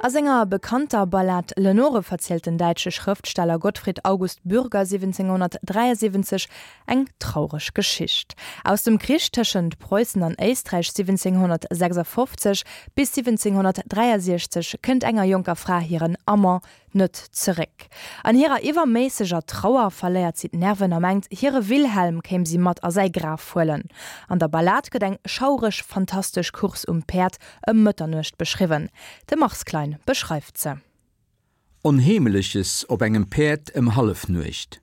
A senger bekannter Ballad Lenore verzielt den däitsche Schrëftsteller Gottfried August Bürger 1773 eng traureg Geschicht. Aus dem Krich tëschent Preussen an Éisträich 1756 bis 1763 kënnt enger jonker Fra hiren Amant net zeréck. An hirer iwwerméisseger Trauer verléiert si d'Nerven a mengt, hire Wilhelm kéim si mat a säi Graf huelen. An der Ballad gëtt eng schaureg, fantastesch Course um Päerd ëm Mëtternuecht beschriwwen. De Mars Klein beschreift se. Onheemleches op engem Päerd ëm Hallefnuecht.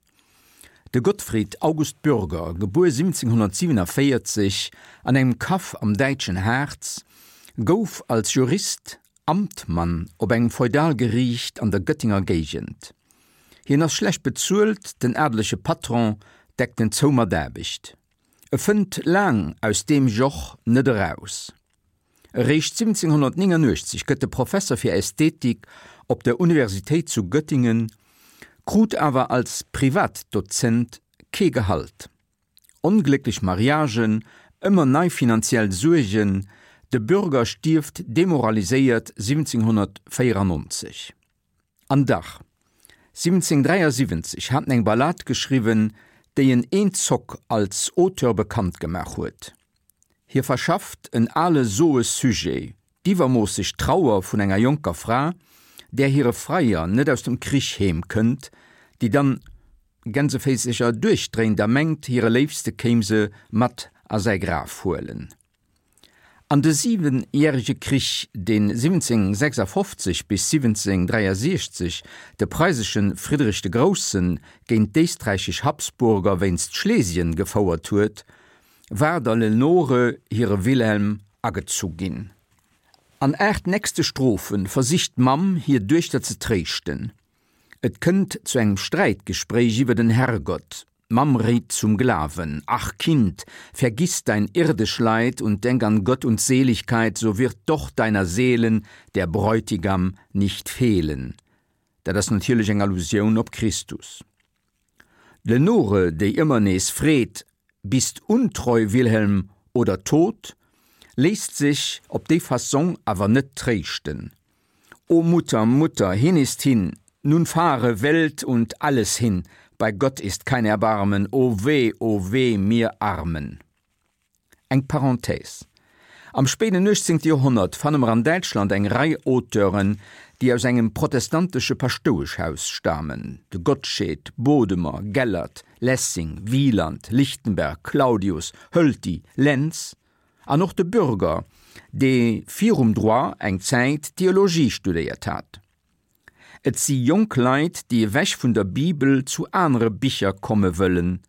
De Gottfried August Bürger, gebuer 1747 an engem Kaff am däitschen Harz, gouf als Jurist Amtmann op engem Feudalgeriicht an der Göttinger Géigend. Hien ass schlecht bezuelt, den adelege Patron deckt en zou mat Aarbecht. E fënnt laang aus deem Joch net eraus. Eréischt 1789 gëtt e Professer fir Ästhetik op der Universitéit zu Göttingen, krut awer als Privatdozent kee Gehalt. Onglécklech Mariagen, ëmmer nei finanziell Suergen, de Bürger stierft demoraliséiert 1794. An dach, 1773 hat en eng Ballad geschriwwen, déi en eenzock als Auteur bekannt gemaach huet. Hie verschafft en ale soe Sujet, d'iwwermoosseg Trauer vun enger jonker Fra, där hire Freier net aus dem Krich heem kënnt, déi dann Gänseféisecher duerchdréint a mengt, hire Léifste kéim se mat a säi Graf huelen. An de Siwenjärege Krich, dee 1756 bis 1763 de preisesche Friedrich de Grousse géint d'éisträichesch Habsburger wéinst Schlesien gefouert huet, war der Lenore hire Wilhelm agezu ginn. An 8 nächste Strophe versicht d'Mamm hir Duechter ze tréischten. Et kënnt zu engem Sträitgespréich iwwer den Herrgott. D'Mamm réit zum Glawen, Ach Kind, vergiss dein irdisch Leid und denk an Gott und Seligkeit, so wird doch deiner Seelen der Bräutigam nicht fehlen. Dat ass natierlech eng Allusioun op Christus. D'Lenore, déi ëmmer nees freet, Bist untreu, Wilhelm, oder tot? léisst sech op déi Fassong awer net tréischten. O Mutter, Mutter, hin ist hin, nun fahre Welt und alles hin, bei Gott ist kein Erbarmen, o weh, o weh mir Armen! Eng Parenthèse, Am spéiden 18. Joerhonnert fanne mer an Däitschland eng Rei Auteuren, déi aus engem protestantesche Paschtoueschhaus stamen, de Gottsched, Bodemer, Gellert, Lessing, Wieland, Lichtenberg, Claudius, Hölty, Lenz an och de Bürger, dee virum Droit eng Zäit Theologie studéiert hat. Et si jonk Leit, déi ewech vun der Bibel zu anere Bicher komme wëllen.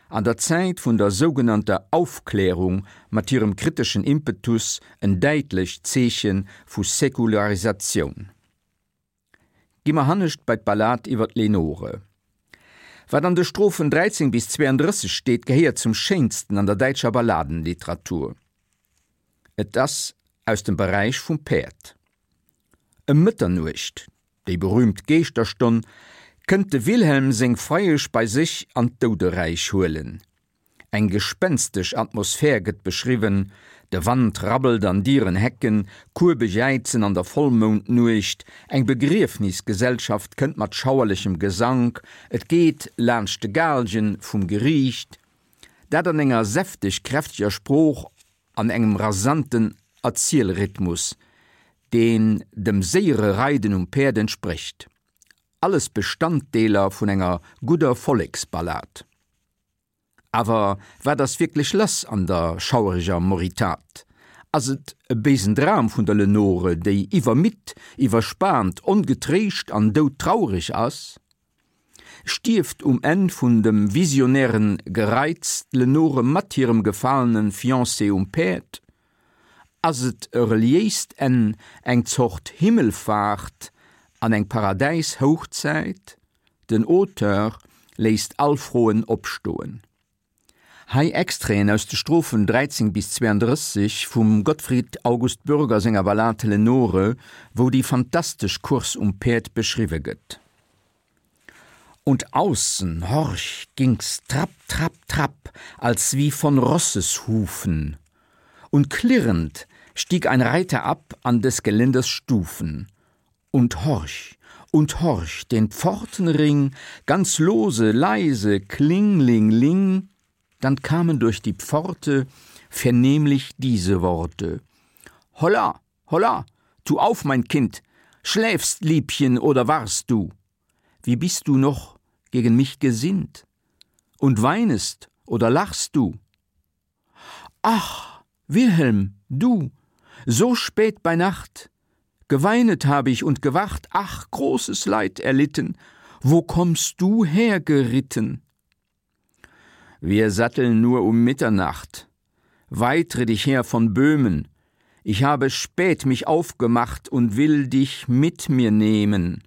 An der Zäit vun der sougenannter Aufklärung mat hirem kriteschen Impetus en däitlecht Zeeche vu Säkularisatioun. Gi mer hannescht bei d'Ballad iwwer d'Lenore. Wat an de Strophen 13 bis 32 steet, gehéiert zum Schéinsten an der däitscher Balladenliteratur. Et ass aus dem Beräich vum Päerd. Ëm Mëtternuecht, déi berüümt Geeschterstonn, kënnt de Wilhelm seng Freiesch bei sech an d'Douderäich huelen. Eng gespenstesch Atmosphär gëtt beschriwwen, de Wand rabbelt an dieren Hecken, Kuebe jäizen an der Vollmoundnuecht, eng Begriefnisgesellschaft kënnt mat schauerlechem Gesank, et geet laanscht de Gaalgen vum Geriicht, dat an enger säfteg kräfteger Sprooch an engem rasanten Erzielrhythmus, deen dem séiere Reiden um Päerd entsprécht. Alles Bestanddeeler vun enger gudder Volleksballad. Awer wat ass wierklech lass an der schauereger Moritat? Ass et e béisen Dram vun der Lenore, déi iwwermidd, iwwerspaant, ongetréischt an doudtraureg ass? Stierft um Enn vun dem visionären Gereiz d'Lenore mat hirem gefalenen Fiancé um Päerd? Ass et e reliéist Enn, eng Zort Himmelfaart an eng Paradäis-Houchzäit? Den Auteur léisst all Froen opstoen. Hei Extraiten aus de Strophen 13 bis 32 vum Gottfried August Bürger senger Ballad Lenore, wou déi fantastesch Course um Päerd beschriwwe gëtt. Und außen, horch, ging's trapp, trapp, trapp, als wie von Rosseshufen, und klirrend stieg ein Reiter ab an des Geländers Stufen. Und horch, und horch, den Pfortenring, ganz lose, leise, kling-ling-ling, dann kamen durch die Pforte vernehmlich diese Worte: Holla, holla, tu auf, mein Kind, schläfst, Liebchen, oder warst du? Wie bist du noch gegen mich gesinnt? Und weinest oder lachst du? Ach, Wilhelm, du, so spät bei Nacht, geweinet habe ich und gewacht, ach, großes Leid erlitten, wo kommst du hergeritten? Wir satteln nur um Mitternacht. Weit ritt ich her von Böhmen. Ich habe spät mich aufgemacht und will dich mit mir nehmen.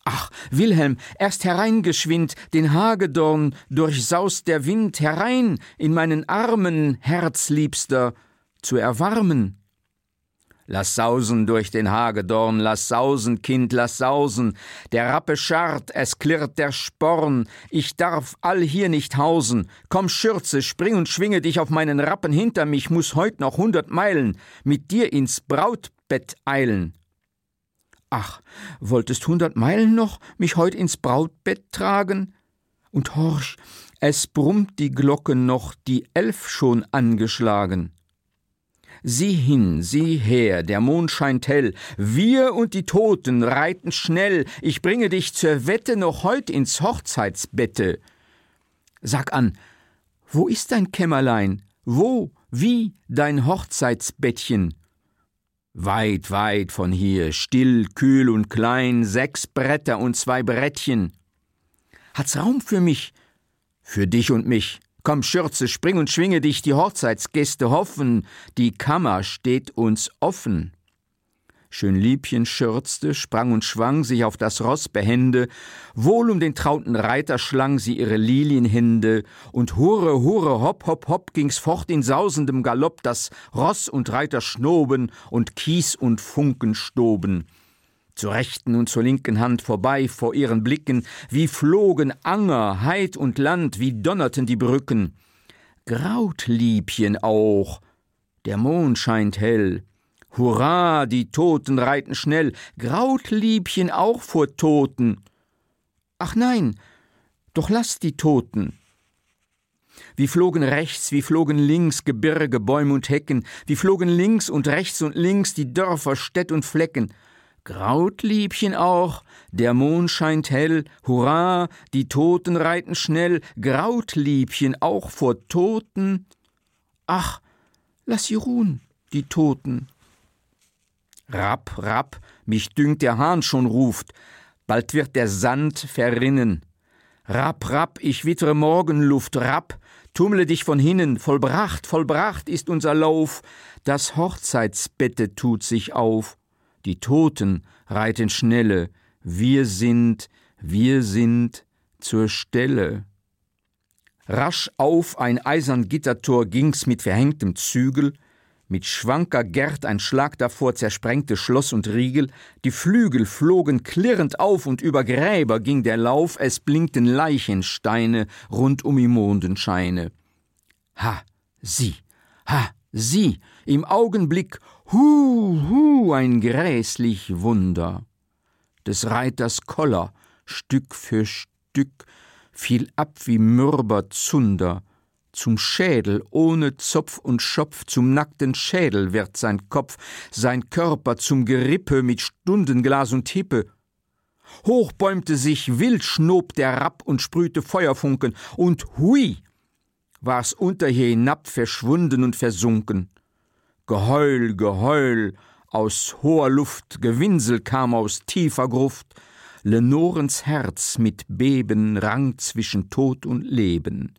Ach, Wilhelm, erst hereingeschwind, den Hagedorn durchsaust der Wind herein in meinen Armen, Herzliebster, zu erwarmen. Lass sausen durch den Hagedorn, lass sausen, Kind, lass sausen, der Rappe scharrt, es klirrt der Sporn, ich darf all hier nicht hausen. Komm, Schürze, spring und schwinge dich auf meinen Rappen hinter mich, muss heut noch hundert Meilen mit dir ins Brautbett eilen. Ach, wolltest hundert Meilen noch mich heut ins Brautbett tragen? Und horch, es brummt die Glocke noch, die Elf schon angeschlagen. Sieh hin, sieh her, der Mond scheint hell, wir und die Toten reiten schnell, ich bringe dich zur Wette noch heut ins Hochzeitsbette. Sag an, wo ist dein Kämmerlein, wo, wie dein Hochzeitsbettchen? Weit, weit von hier, still, kühl und klein, sechs Bretter und zwei Brettchen. Hat's Raum für mich? Für dich und mich. Komm, Schürze, spring und schwinge dich, die Hochzeitsgäste hoffen, die Kammer steht uns offen. Schönliebchen schürzte, sprang und schwang sich auf das Ross behende, wohl um den trauten Reiter schlang sie ihre Lilienhände, und hure, hure, hopp, hopp, hopp ging's fort in sausendem Galopp, dass Ross und Reiter schnoben und Kies und Funken stoben. Zur rechten und zur linken Hand vorbei vor ihren Blicken, wie flogen Anger, Heid und Land, wie donnerten die Brücken. Graut Liebchen auch, der Mond scheint hell. Hurra, die Toten reiten schnell, graut Liebchen auch vor Toten. Ach nein, doch lass die Toten. Wie flogen rechts, wie flogen links Gebirge, Bäum und Hecken, wie flogen links und rechts und links die Dörfer, Städt und Flecken. Graut Liebchen auch, der Mond scheint hell, hurra, die Toten reiten schnell, graut Liebchen auch vor Toten. Ach, lass sie ruhen, die Toten. Rapp, rapp, mich dünkt der Hahn schon ruft, bald wird der Sand verrinnen. Rapp, rapp, ich wittere Morgenluft, rapp, tummle dich von hinnen, vollbracht, vollbracht ist unser Lauf, das Hochzeitsbette tut sich auf, die Toten reiten schnelle, wir sind, wir sind zur Stelle. Rasch auf ein eisern Gittertor ging's mit verhängtem Zügel, mit schwanker Gerd ein Schlag davor zersprengte Schloss und Riegel, die Flügel flogen klirrend auf und über Gräber ging der Lauf, es blinkten Leichensteine rund um im Mondenscheine. Ha, sieh, ha, sieh, im Augenblick, hu, hu, ein gräßlich Wunder! Des Reiters Koller, Stück für Stück, fiel ab wie mürber Zunder, zum Schädel ohne Zopf und Schopf, zum nackten Schädel wird sein Kopf, sein Körper zum Gerippe mit Stundenglas und Hippe. Hoch bäumte sich, wild schnob der Rapp und sprühte Feuerfunken, und hui! War's unter hier hinab verschwunden und versunken. Geheul, Geheul aus hoher Luft, Gewinsel kam aus tiefer Gruft, Lenorens Herz mit Beben rang zwischen Tod und Leben.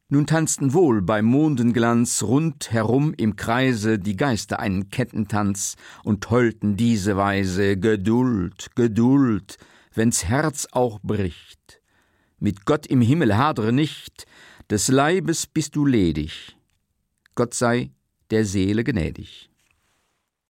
Nun tanzten wohl beim Mondenglanz rund herum im Kreise die Geister einen Kettentanz und heulten diese Weise: Geduld, Geduld, wenn's Herz auch bricht. Mit Gott im Himmel hadre nicht, des Leibes bist du ledig. Gott sei der Seele gnädig.